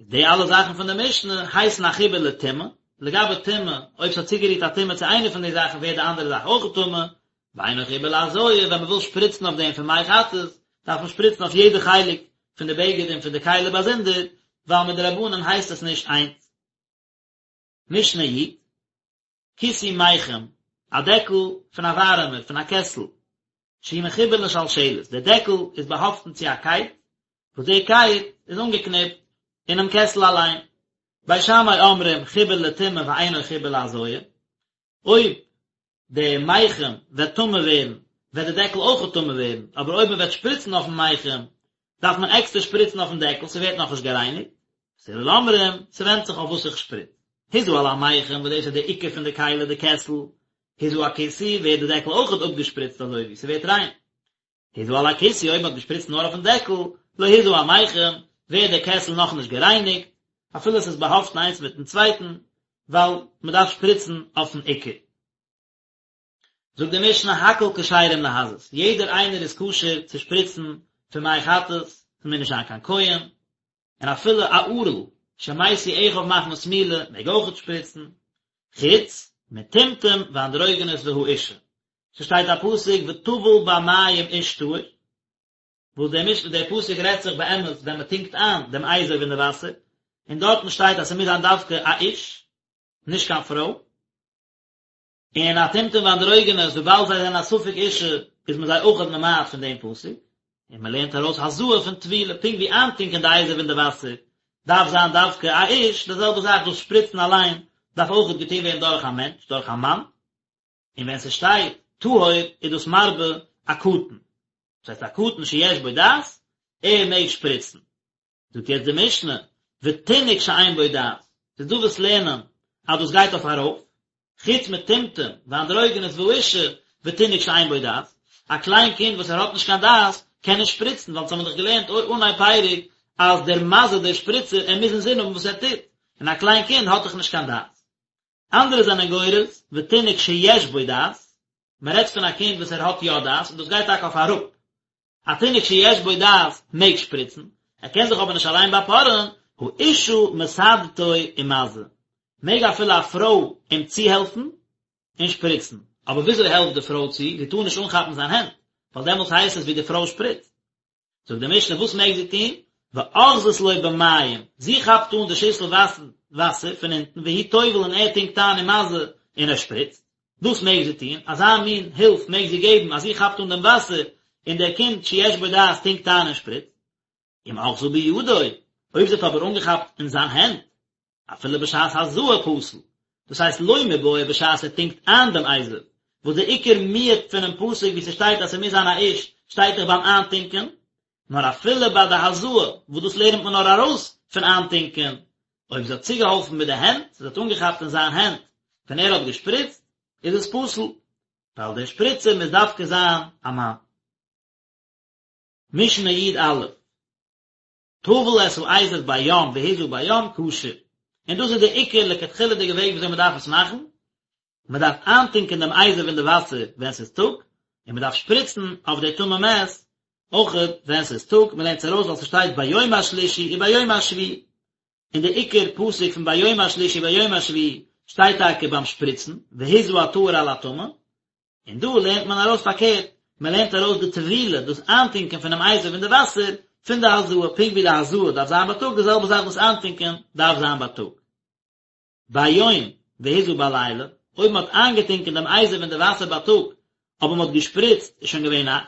די אלע זאכן פון די משנה הייסן א חיבור לטומאה, לגבי טומאה, אויב ס'האט צוגערירט א טומאה צו איינע פון די זאכן ווערט די אנדערע זאך אויך טמא, ואינו חיבור להזאה, ווען מ'וויל שפריצן אויף דעם פון מי חטאת, דארף מען שפריצן אויף יעדע חלק פון די בגד און פון די כלי באזונדער, ווייל מדרבנן הייסט עס נישט איינס. משנה י, כיסוי מיחם, א דעקל פון א ווארעמער, פון א קעסל, שהוא מחובר לשלשלת, דער דעקל איז באהאפטן צו א קייט, וואס די קייט איז אנגעקניפט אינעם קעסל אליין. בית שמאי אומרים חיבור לטומאה ואינו חיבור להזאה, אויב די מיחם וועט טמא ווערן, וועט די דעקל אויך טמא ווערן, אבער אויב מען וועט שפריצן אויפן מיחם, דארף מען עקסטער שפריצן אויפן דעקל, ס'ווערט נאכנישט גערייניגט. בית הלל אומרים, ס'ווענדט זיך אויף וואס איך שפריץ. הזה על המיחם, וואס דאס איז די עיקר פון די כלי, די קעסל, הזה הכיסוי, ווערט די דעקל אויכעט אפגעשפריצט אזוי ווי ס'ווערט ריין. הזה על הכיסוי, אויב מ'האט געשפריצט נאר אויפן דעקל, לא הזה המיחם, ווערט די קעסל נאכנישט גערייניגט, אפילו ס'איז באהאפטן איינס מיטן צווייטן, ווייל מ'דארף שפריצן אויפן עיקר. זאגט די משנה הכל כשרים להזות, יעדער איינער איז כשר צו שפריצן פון מי חטאת, ס'מוז נישט זיין קיין כהן, און אפילו א ערל שמתו אחיו מחמת מילה מעג אויכעט שפריצן, חוץ מטומטום ואנדרוגינוס והאשה, ס'שטייט א פסוק וטבל במים איש טהור, וואס דער משנה דער פסוק רעדט זיך באמת ווען מ'טונקט איין דעם אזוב אין די וואסער, און דארטן שטייט אז ס'מוז זיין דווקא א איש, נישט קיין פרוי. און א טומטום ואנדרוגינוס וויבאלד זיי זענען א ספק אישה איז מען זיי אויכעט ממעט פון דעם פסוק, און מען לערנט ארויס הזאה פון טבילה, פונקט ווי איינטונקען די אזוב אין די וואסער דארף זיין דווקא א איש, די זעלבע זאך דאס שפריצן אליין דארף אויכעט געטון ווערן דורך א מענטש, דורך א מאן, און ווען ס'שטייט טהור איז דאס מרבה א קטן, דאס הייסט א קטן שיש בו דעת, ער מעג שפריצן. זאגט יעצט די משנה, ותינוק שאין בו דעת, ס'איז דא וואס לערנען אז דאס גייט אויף ארויף, חוץ מטומטום ואנדרוגינוס והאשה ותינוק שאין בו דעת, א קליין קינד וואס ער האט נישט קיין דעת קען נישט שפריצן, ווייל אונז האבן דאך געלערנט אנהייב פרק אז דער מזה דער שפריצער ער מוז אינזין האבן וואס ער טוט, און א קליין קינד האט דאך נישט קיין דעת. אנדערע זענען גורס, ותינוק שיש בו דעת, מען רעדט פון א קינד וואס ער האט יא דעת, און דאס גייט טאקע אויף אראפ, א תינוק שיש בו דעת מעג שפריצן, ער קען זיך אבער נישט אליין באפארען, האשה מסעדתו ומזה, מעג אפילו א פרוי אים צוהעלפן און שפריצן, אבער וויאזוי העלפט די פרוי צו, זי טאר נישט אנכאפן זיין הענט, ווייל דעמאלטס הייסט עס ווי די פרוי שפריצט. זאגט די משנה וואס מעג זי טון, ואוחזת לו במים, זי כאפט אן די שיסל וואסער פון אונטן והוא טובל און ער טונקט איין ומזה און ער שפריצט. דאס מעג זי טון, אזא מין הילף מעג זי געבן אז זי כאפט אן דעם וואסער און דער קינד שיש בו דעת טונקט איין און שפריצט. אם אחזה בידו, אויב זי האט אבער אנגעכאפט אין זיין הענט, אפילו בשעת הזאה פסול, דאס הייסט לא מיבעיא בשעת ער טונקט איין דעם אזוב, וואס דער עיקר מיעוט פונעם פסוק וואו ס'שטייט אז ס'מוז זיין א איש, שטייט דאך ביים איינטונקען, נאר אפילו ביי די הזאה, וואס דאס לערנט מען נאר ארויס פון איינטונקען, אויב זי האט צוגעהאלפן מיט די הענט, זי האט אנגעכאפט אין זיין הענט ווען ער האט געשפריצט, איז עס פסול, ווייל דער שפריצער מוז דווקא זיין א מאן. משנה י"א, טבל את האזוב ביום והזה ביום כשר, און דאס איז די עיקר לכתחילה'דיגע וועג וויאזוי מען דארף עס מאכן, מען דארף איינטונקען דעם אזוב אין די וואסער ווען ס'איז טאג, און מען דארף שפריצן אויף די טמא מת אויכעט ווען ס'איז טאג, מען לערנט עס ארויס ווייל ס'שטייט ביום השלישי וביום השביעי, און די עיקר פסוק פון ביום השלישי וביום השביעי שטייט טאקע ביים שפריצן, והזה הטהור על הטמא, און דא לערנט מען ארויס פארקערט, מען לערנט ארויס די טבילה, דאס איינטונקען פונעם אזוב אין די וואסער, פון די הזאה, פונקט ווי די הזאה דארף זיין בייטאג, די זעלבע זאך דאס איינטונקען דארף זיין בייטאג. ביום והזה בלילה, אויב מען האט איינגעטונקען דעם אזוב אין די וואסער בייטאג, אבער מען האט געשפריצט איז שוין געווען נאכט,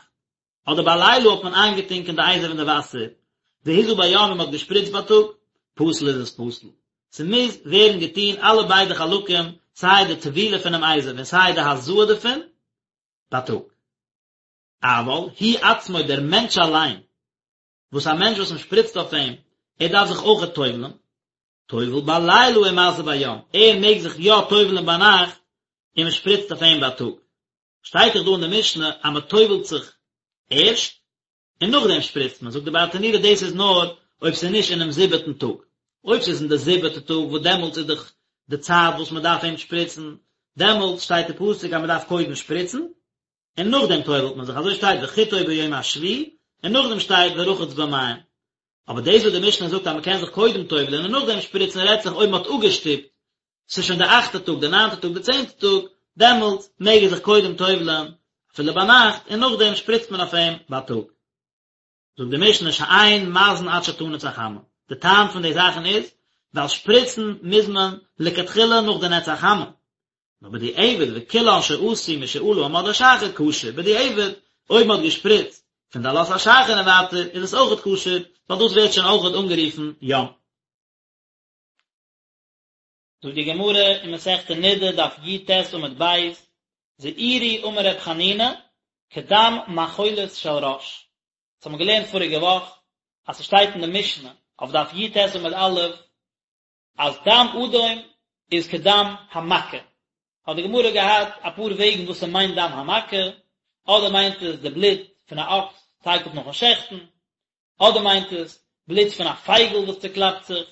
אדער בלילה האט מען איינגעטונקען די אזוב אין די וואסער, והזה ביום און מען האט געשפריצט בייטאג, פסול איז עס פסול. ס'מוז ווערן געטון אלע ביידע חלקים, סיי די טבילה פונעם אזוב און סיי די הזאה דערפון, בייטאג. אבל הוא עצמו דער מענטש אליין, וואס א מענטש וואס מען שפריצט אויף אים, ער דארף זיך אויכעט טובל'ן, טובל בלילה ומזה ביום, ער מעג זיך יא טובל'ן ביינאכט און מען שפריצט אויף אים בייטאג. שטייט דאך דא אין די משנה אז מען טובל'ט זיך ערשט. און נאכדעם שפריצט מען, זאגט די ברטנורא דאס איז נאר אויב ס'איז נישט אינעם זיבעטן טאג, אויב ס'איז אין די זיבעטע טאג וואס דעמאלטס איז דאך די צייט וואס מען דארף אים שפריצן, דעמאלטס שטייט די פסוק אז מען דארף קודם שפריצן, און נאכדעם טובל'ט מען זיך, אזוי שטייט וחיטאו ביום השביעי, און נאכדעם שטייט ורחץ במים. אבער דאס וואס די משנה זאגט אז מען קען זיך קודם טובל'ען און נאכדעם שפריצן רעדט זיך אויב מען האט אפגעשטופט, ס'איז שוין די אכטע טאג, די ניינטע טאג, די צענטע טאג, דעמאלטס מעג ער זיך קודם טובל'ען אפילו ביינאכט און נאכדעם שפריצט מען אויף אים בייטאג. זאגט די משנה שאין מזין עד שתנץ החמה, די טעם פון די זאכן איז ווייל שפריצן מוז מען לכתחילה נאך די נץ החמה, נאר בדיעבד וכולן שעשו משעלה עמוד השחר כשר, בדיעבד אויב מען האט געשפריצט פון די עלות השחר און ווייטער איז עס אויכעט כשר, ווייל דאס ווערט שוין אויכעט אנגערופן יום. זאגט די גמרא אין מסכת נדה דף י"ט עמוד ב', זעירי אמר ר' חנינא, כדם מאכולת של ראש. דאס האבן מיר געלערנט פאריגע וואך, אז ס'שטייט אין די משנה אויף דף י"ט עמוד א', אז דם אדום איז כדם המכה. האט די גמרא געהאט אפאר וועגן וואס ס'מיינט דם המכה, אדער מיינט עס די בלוט פון א אקס תיכף נאכן שעכטן, אדער מיינט עס בלוט פון א פייגל וואס צוקלאפט זיך.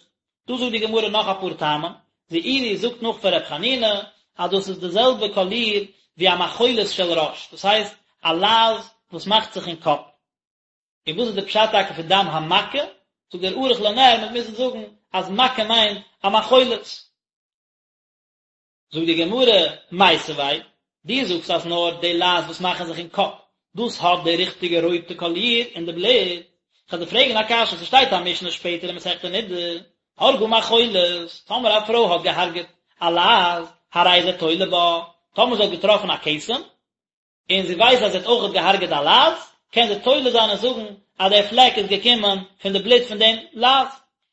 דא זאגט די גמרא נאך אפאר טעמים, זעירי זאגט נאך פון ר' חנינא אז דאס איז די זעלבע קאליר ווי א מאכולת של ראש, דאס הייסט א לייז וואס מאכט זיך אין קאפ. און וואס איז די פשט טאקע פון דם המכה? זאגט דער ערוך לנר מ'וועט מוזן זאגן אז מכה מיינט א מאכולת. זאגט די גמרא, מיתיבי, דו זאגסט אז נאר די לייז וואס מאכן זיך אין קאפ, דאס האט די ריכטיגע רויטע קאליר אין די בלוט, כ'וועל דיר פרעגן א קשיא, ס'שטייט א משנה שפעטער אין מסכת נדה, הרגה מאכולת, טאמער א פרוי האט געהארגעט א לייז, הרי זה תולה בה, טאמער זי האט געטראפן א כתם, און זי ווייסט אז זי האט אויכעט געהארגעט א לייז, קען זי תולה זיין און זאגן אז דער פלעק איז געקומען פון די בלוט פון דעם לייז.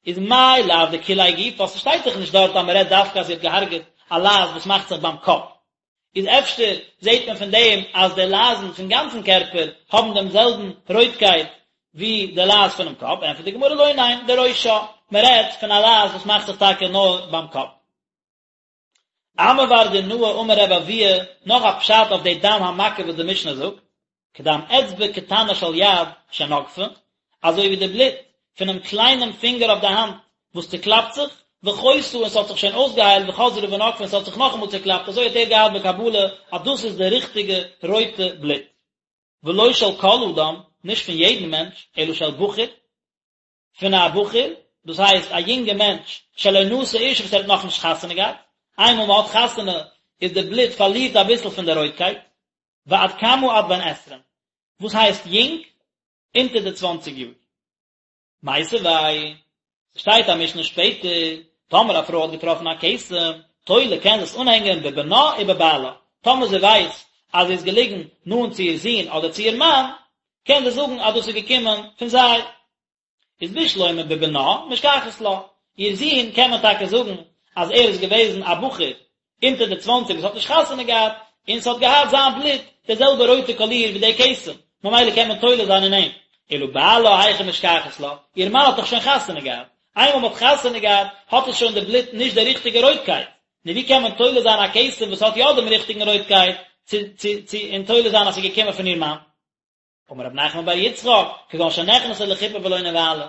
איז מאי לאו דכוליה גופה, ס'שטייט דאך נישט דארט אז מ'רעדט דווקא אז זי האט געהארגעט א לייז וואס מאכט זיך ביים קאפ. איז אפשר זעט מען פון דעם אז די לייזן פון גאנצן קערפער האבן דעם זעלבן רויטקייט ווי די לייז פונעם קאפ, ענטפערט די גמרא לא ניין, דראשה, מ'רעדט פון א לייז וואס מאכט זיך טאקע נאר ביים קאפ. אמי בר דינאי אמר רבי אבהו, נאך א פשט אויף די דם המכה וואס די משנה זאגט, כדם אצבע קטנה של יד שנגפה, אזוי ווי די בלוט פונעם קליינעם פינגער אויף די האנט וואס צוקלאפט זיך, וחיתה און ס'האט זיך שוין אויסגעהיילט וחזרה ונגפה און ס'האט זיך נאכאמאל צוקלאפט, אזוי האט ער געהאט בקבלה אז דאס איז די ריכטיגע רויטע בלוט. ולא של כל אדם, נישט פון יעדן מענטש, אלא של בחור, פון א בחור, דאס הייסט א יונגע מענטש, שלא נשא אשה וואס ער האט נאכנישט חתונה געהאט, איינמאל מען האט חתונה איז די בלוט פארלירט אביסל פון די רויטקייט, ועד כמה עד בן עשרים, וואס הייסט יונג? אונטער די צוואנציג יאר. מיתיבי, ס'שטייט א משנה שפעטער, טאמער א פרוי האט געטראפן א כתם, תולה קען זי עס אנהענגען בבנה ובבעלה, טאמער זי ווייסט אז זי איז געליגן נאנט צו איר זון אדער צו איר מאן, קען זי זאגן אז דאס איז געקומען פון זיי. איז בשלמא בבנה משכחת לה, איר זון קען מען טאקע זאגן אז ער איז געוועזן א בחור אונטער די צוואנציג וואס האט נישט חתונה געהאט, און ס'האט געהאט זיין בלוט די זעלבע רויטע קאליר ווי די כתם, ממילא קען מען תולה זיין אין אים. אלא בעלה היכי משכחת לה, איר מאן האט דאך שוין חתונה געהאט, איינמאל מ'האט חתונה געהאט האט עס שוין די בלוט נישט די ריכטיגע רויטקייט, נו ווי קען מען תולה זיין א כתם וואס האט יא דעם ריכטיגן רויטקייט צו צו צו און תולה זיין אז ס'איז געקומען פון איר מאן? אמר רב נחמן בר יצחק, כגון שנכנסה לחופה ולא נבעלה.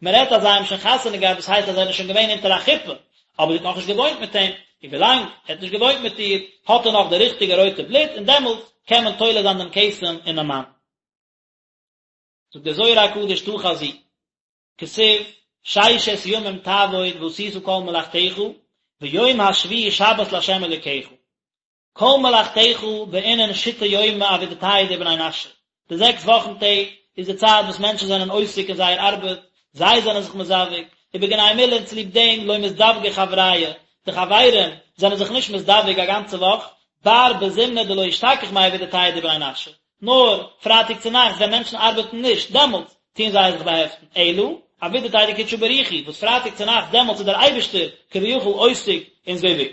מען רעדט אז זיי האבן שוין חתונה געהאט דאס הייסט אז זיי זענען שוין געווען אונטער א חופה, אבער זי האט נאכנישט געוואוינט מיט אים, און ווילאנג ער האט נישט געוואוינט מיט איר האט ער נאך די ריכטיגע רויטע בלוט און דעמאלטס קען מען תולה זיין דעם כתם אינעם מאן. זאגט דער זוהר הקדוש תא חזי, כתיב, ששת ימים תעבוד ועשית כל מלאכתך, ויום השביעי שבת לה' אלוקיך. כל מלאכתך בעינן שיתא יומי עבידתייהו דבני נשא, די זעקס וואכן טעג איז די צייט וואס מענטשן זענען עוסק אין זייער ארבעט, זיי זענען זיך מזווג, ובגין האי מילין צוליב דעם לא מזדווגי חברייא, די חברים זענען זיך נישט מזדווג א גאנצע וואך, בר בזימנא דלא אשתכח מאי עבידתייהו דבני נשא, נאר פרייטאג צו נאכטס ווען מענטשן ארבעטן נישט, דעמאלטס טוען זיי זיך באהעפטן, אלא עבידתיה דקודשא בריך הוא, וואס פרייטאג צו נאכטס דעמאלטס איז דער אייבערשטער כביכול עוסק אין זיווג.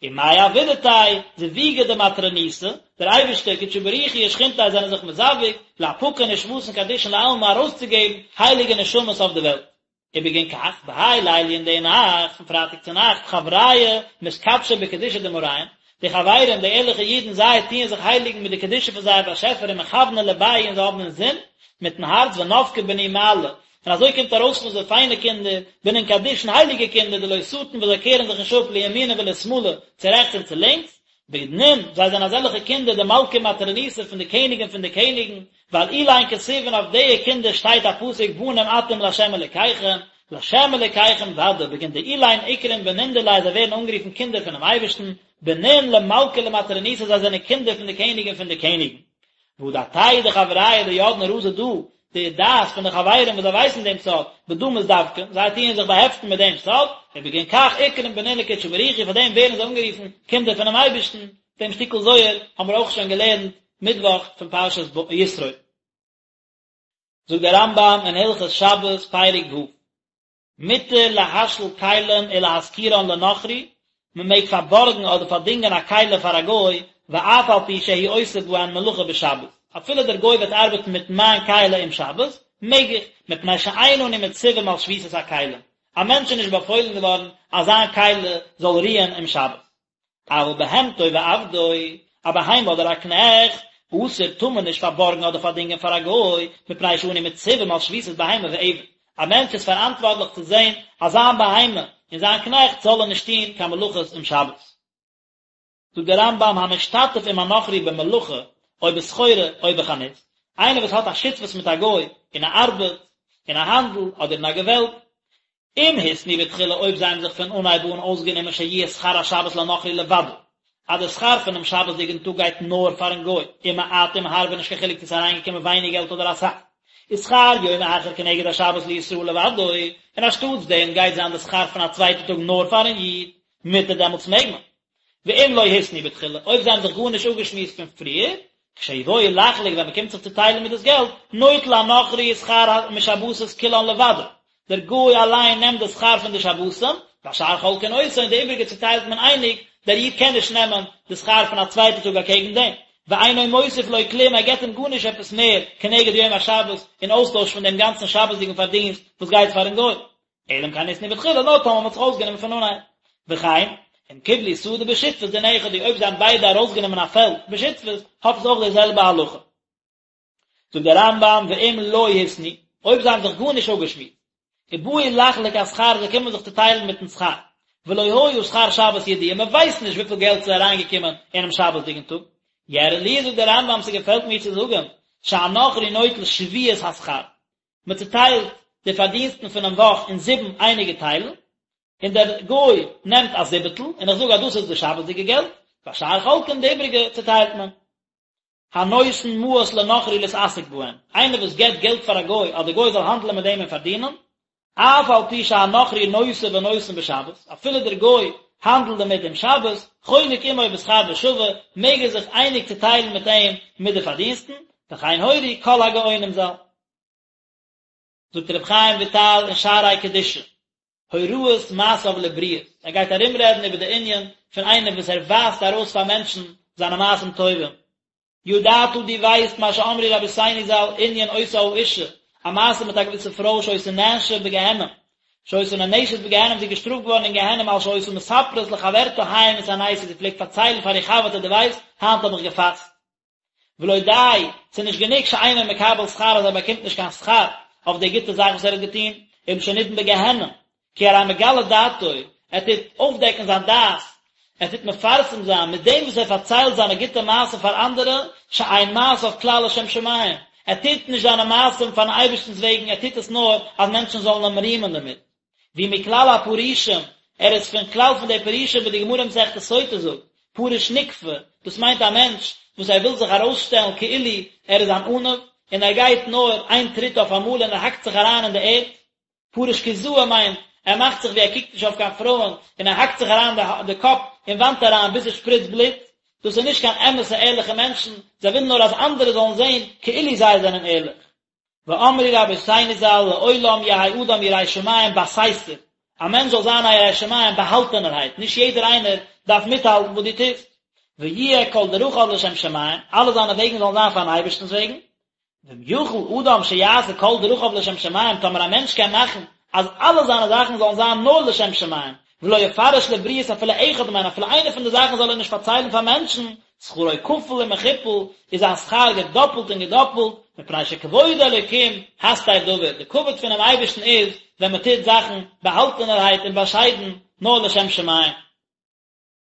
ומאי עבידתיה זיווגא דמטרוניתא, דער אייבערשטער, קודשא בריך הוא ושכינתיה זענען זיך מזווג, לאפקא נשמתין קדישין לעלמא ארויסצוגעבן הייליגע נשמות אויף די וועלט. ובגין כך, בהאי ליליא אין די נאכט, פון פרייטאג צו נאכט, חברייא מתקדשי בקדושה דמאריהון, די חברים, די ערליכע אידן, זיי טוען זיך הייליגן מיט די קדושה פון זייער באשעפער ומכווני לבייהו און זיי האבן אינזין, מיטן הארץ ונפקי בני מעלה, און אזוי קומט ארויס פון זיי פיינע קינדער, בנין קדישין הייליגע קינדער דלא סטין וואס זיי קערן זיך נישט אפ לימינא ולשמאלא, צו רעכטס און צו לינקס, בנין, זיי זענען אזעלכע קינדער דמלכא ומטרוניתא פון די קעניגן פון די קעניגן, ועל אלין כתיב און אויף די קינדער שטייט א פסוק בנים אתם לה' אלקיכם, לה' אלקיכם ודאי, בגין דאלין אקרון בנין דיליה זיי ווערן אנגערופן קינדער פונעם אייבערשטן, בנין למלכא ולמטרוניתא זיי זענען קינדער פון די קעניגן פון די קעניגן. והא דעתייהו דחברוהי דידעין רזא דא, די דעת פון די חברים וואס זיי ווייסן דעם סוד, בדא מתדבקן, זיי טוען זיך באהעפטן מיט דעם סוד, ובגין כך אקרון בנין לקודשא בריך הוא, פאר דעם ווערן זיי אנגערופן קינדער פונעם אייבערשטן, דעם שטיקל זוהר האבן מיר אויך שוין געלערנט מיטוואך פון פרשת יתרו. זאגט דער רמב"ם אין הלכות שבת פרק ו', מותר להשאיל כלים ולהשכירן לנכרי, מען מעג פארבארגן אדער פארדינגען א כלי פאר א גוי, ואף על פי שהוא עושה בהן מלאכה בשבת, אפילו דער גוי וועט ארבעטן מיט מיין כלי אום שבת, מעג איך, מפני שאין אנו מצווים על שביתת הכלים, א מענטש איז נישט באפוילן געווארן אז זיין כלי זאל רוען אום שבת. אבל בהמתו ועבדו, א בהמה אדער א קנעכט, אסור טאר מען נישט פארבארגן אדער פארדינגען פאר א גוי, מפני שאנו מצווים על שביתת בהמה ועבד. א מענטש איז פאראנטווארטליך צו זען אז זיין בהמה און זיין קנעכט זאלן נישט טון קיין מלאכות אום שבת. זאגט דער רמב"ם המשתתף עם הנכרי במלאכה או בסחורה או בחנות, איינער וואס האט א שותפות מיט א גוי אין א ארבעט, אין א האנדל אדער אין א געוועלב, אם התנו בתחילה אויב זיי האבן זיך פון אנהייב אן אויסגענומען שיהיה שכר השבת לנכרי לבדו, אז די שכר פונעם שבת'דיגן טאג גייט נאר פארן גוי, אם מעט אם הרבה נישט קיין חילוק צו ס'איז אריינגעקומען ווייניג געלט אדער אסאך, ושכר יום אחר כנגד השבת לישראל לבדו, און אנשטאטס דעם גייט זיין די שכר פון א צווייטע טאג נאר פארן איד, מותר דעמאלטס מעג מען. ואם לא התנו בתחילה, אויב זיי האבן זיך גארנישט אפגעשמועסט פון פריער, כשיבואו לחלוק ווען מען קומט זיך צו טיילן מיט דאס געלט, נוטל הנכרי שכר משבתות כולן לבדו, דער גוי אליין נעמט די שכר פון די שבתים, והשאר חולקין אותו און די איבריגע צוטיילט מען אייניג, דער איד קען נישט נעמען די שכר פון א צווייטע טאג אקעגן דעם, ואינו מוסיף לו כלום ער געבט אים גארנישט עפעס מער כנגד יום השבת אין אויסטויש פון דעם גאנצן שבת'דיגן פארדינסט וואס גייט פארן גוי. אלא אם כן התנו בתחילה נאר טאמער מ'האט זיך אויסגענומען פון אנהייב. וכן, אם קיבלו שדה בשותפות דין אחד הוא אויב זיי האבן ביידע ארויסגענומען א פעלד בשותפות, האט עס אויך די זעלבע הלכה. זאגט דער רמב"ם ואם לא התנו, אויב זיי האבן זיך גארנישט אפגעשמועסט, ובאו לחלוק השכר זיי קומען זיך צו טיילן מיטן שכר, ולא היה שכר שבת ידוע, מען ווייסט נישט וויפיל געלט ס'איז אריינגעקומען אינעם שבת'דיגן טאג, יראה לי זאגט דער רמב"ם ס'געפעלט מיר צו זאגן, שהנכרי נוטל שביעית השכר, מען צוטיילט די פארדינסטן פונעם וואך אין זיבן אייניגע טיילן, און דער גוי נעמט א זיבעטל, און איך זאג אז דאס איז די שבת'דיגע געלט, והשאר חולקין די איבריגע צוטיילט מען. הנותן מעות לנכרי להתעסק בהן, איינער וואס געבט געלט פאר א גוי אז דער גוי זאל האנדלען מיט דעם און פארדינען, אף על פי שהנכרי נושא ונותן בשבת, אפילו דער גוי האנדלט דערמיט אום שבת, חולק עמו בשכר בשווה, מעג ער זיך אייניג צוטיילן מיט אים מיט די פארדינסטן, וכן הורו כל הגאונים ז"ל. זאגט רבי חיים וויטאל אין שערי קדושה, הוראת מעשיו לבריות, ער גייט ארומרעדן איבער די ענין פון איינער וואס ער ווייזט ארויס פאר מענטשן זיינע מעשים טובים, ידעת דו ווייסט מה שאמרו רבותינו ז"ל ענין אותה האשה, א מעשה מיט א געוויסע פרוי שהיתה נענשה בגיהנום, שהיתה נענשת בגיהנום זי איז געשטראפט געווארן אין גיהנום על שהיתה מספרת לחברתה היום התעניתי זי פלעגט פארציילן פאר איר חבר'טע דו ווייסט היינט האב איך געפאסט. ולא די, ס'איז נישט גענוג שאינו מקבל שכר אז ער באקומט נישט קיין שכר אויף די גוטע זאך וואס ער האט געטון, אלא שנידון בגיהנום, כי הרי מגלה דעתו, ער טוט אויפדעקן זיין דעת, ער טוט מפרסם זיין מיט דעם וואס ער פארציילט זיינע גוטע מעשים פאר אנדערע, שאין מעשיו כלל לשם שמים, ער טוט נישט זיינע מעשים פארן אייבערשטנ'ס וועגן, ער טוט עס נאר אז מענטשן זאלן אים רימען דערמיט. והוא מכלל הפרושים, ער איז פון כלל פון די פרושים ווי די גמרא אין מסכת סוטה זאגט, פרוש נקפי, דאס מיינט א מענטש וואס ער וויל זיך ארויסשטעלן כאילו ער איז אן עניו, און ער גייט נאר איין טריט אויף אמאל און ער האקט זיך אריין אין די ערד. פרוש קיזאי מיינט, ער מאכט זיך ווי ער קוקט נישט אויף קיין פרויען, און ער האקט זיך אריין די קאפ אין וואנט אריין ביז עס שפריצט בלוט. דאס איז נישט קיין אמת'ע ערליכע מענטשן, זיי ווילן נאר אז אנדערע זאלן זען כאילו זיי זענען ערליך. ואמרו רבותינו ז"ל לעולם יהא אדם ירא שמים בסתר, א מענטש זאל זיין א ירא שמים באהאלטענערהייט, נישט יעדער איינער דארף מיטהאלטן וואס דו טוסט, ויהיה כל דרכיו לשם שמים, אלע זיינע וועגן זאלן זיין פארן אייבערשטנ'ס וועגן, ואם יכול אדם שיעשה כל דרכיו לשם שמים, טאמער א מענטש קען מאכן אז אלע זיינע זאכן זאלן זיין נאר לשם שמים, ולא יפרש לבריות אפילו אחד מהן, אפילו איינע פון די זאכן זאל ער נישט פארציילן פאר מענטשן, שכרו כפול ומכופל, איז זיין שכר געדאפלט און געדאפלט, מפני שכבוד אלוקים הסתר דבר, די כבוד פונעם אייבערשטן איז ווען מען טוט זאכן באהאלטענערהייט און באשיידן, נאר לשם שמים.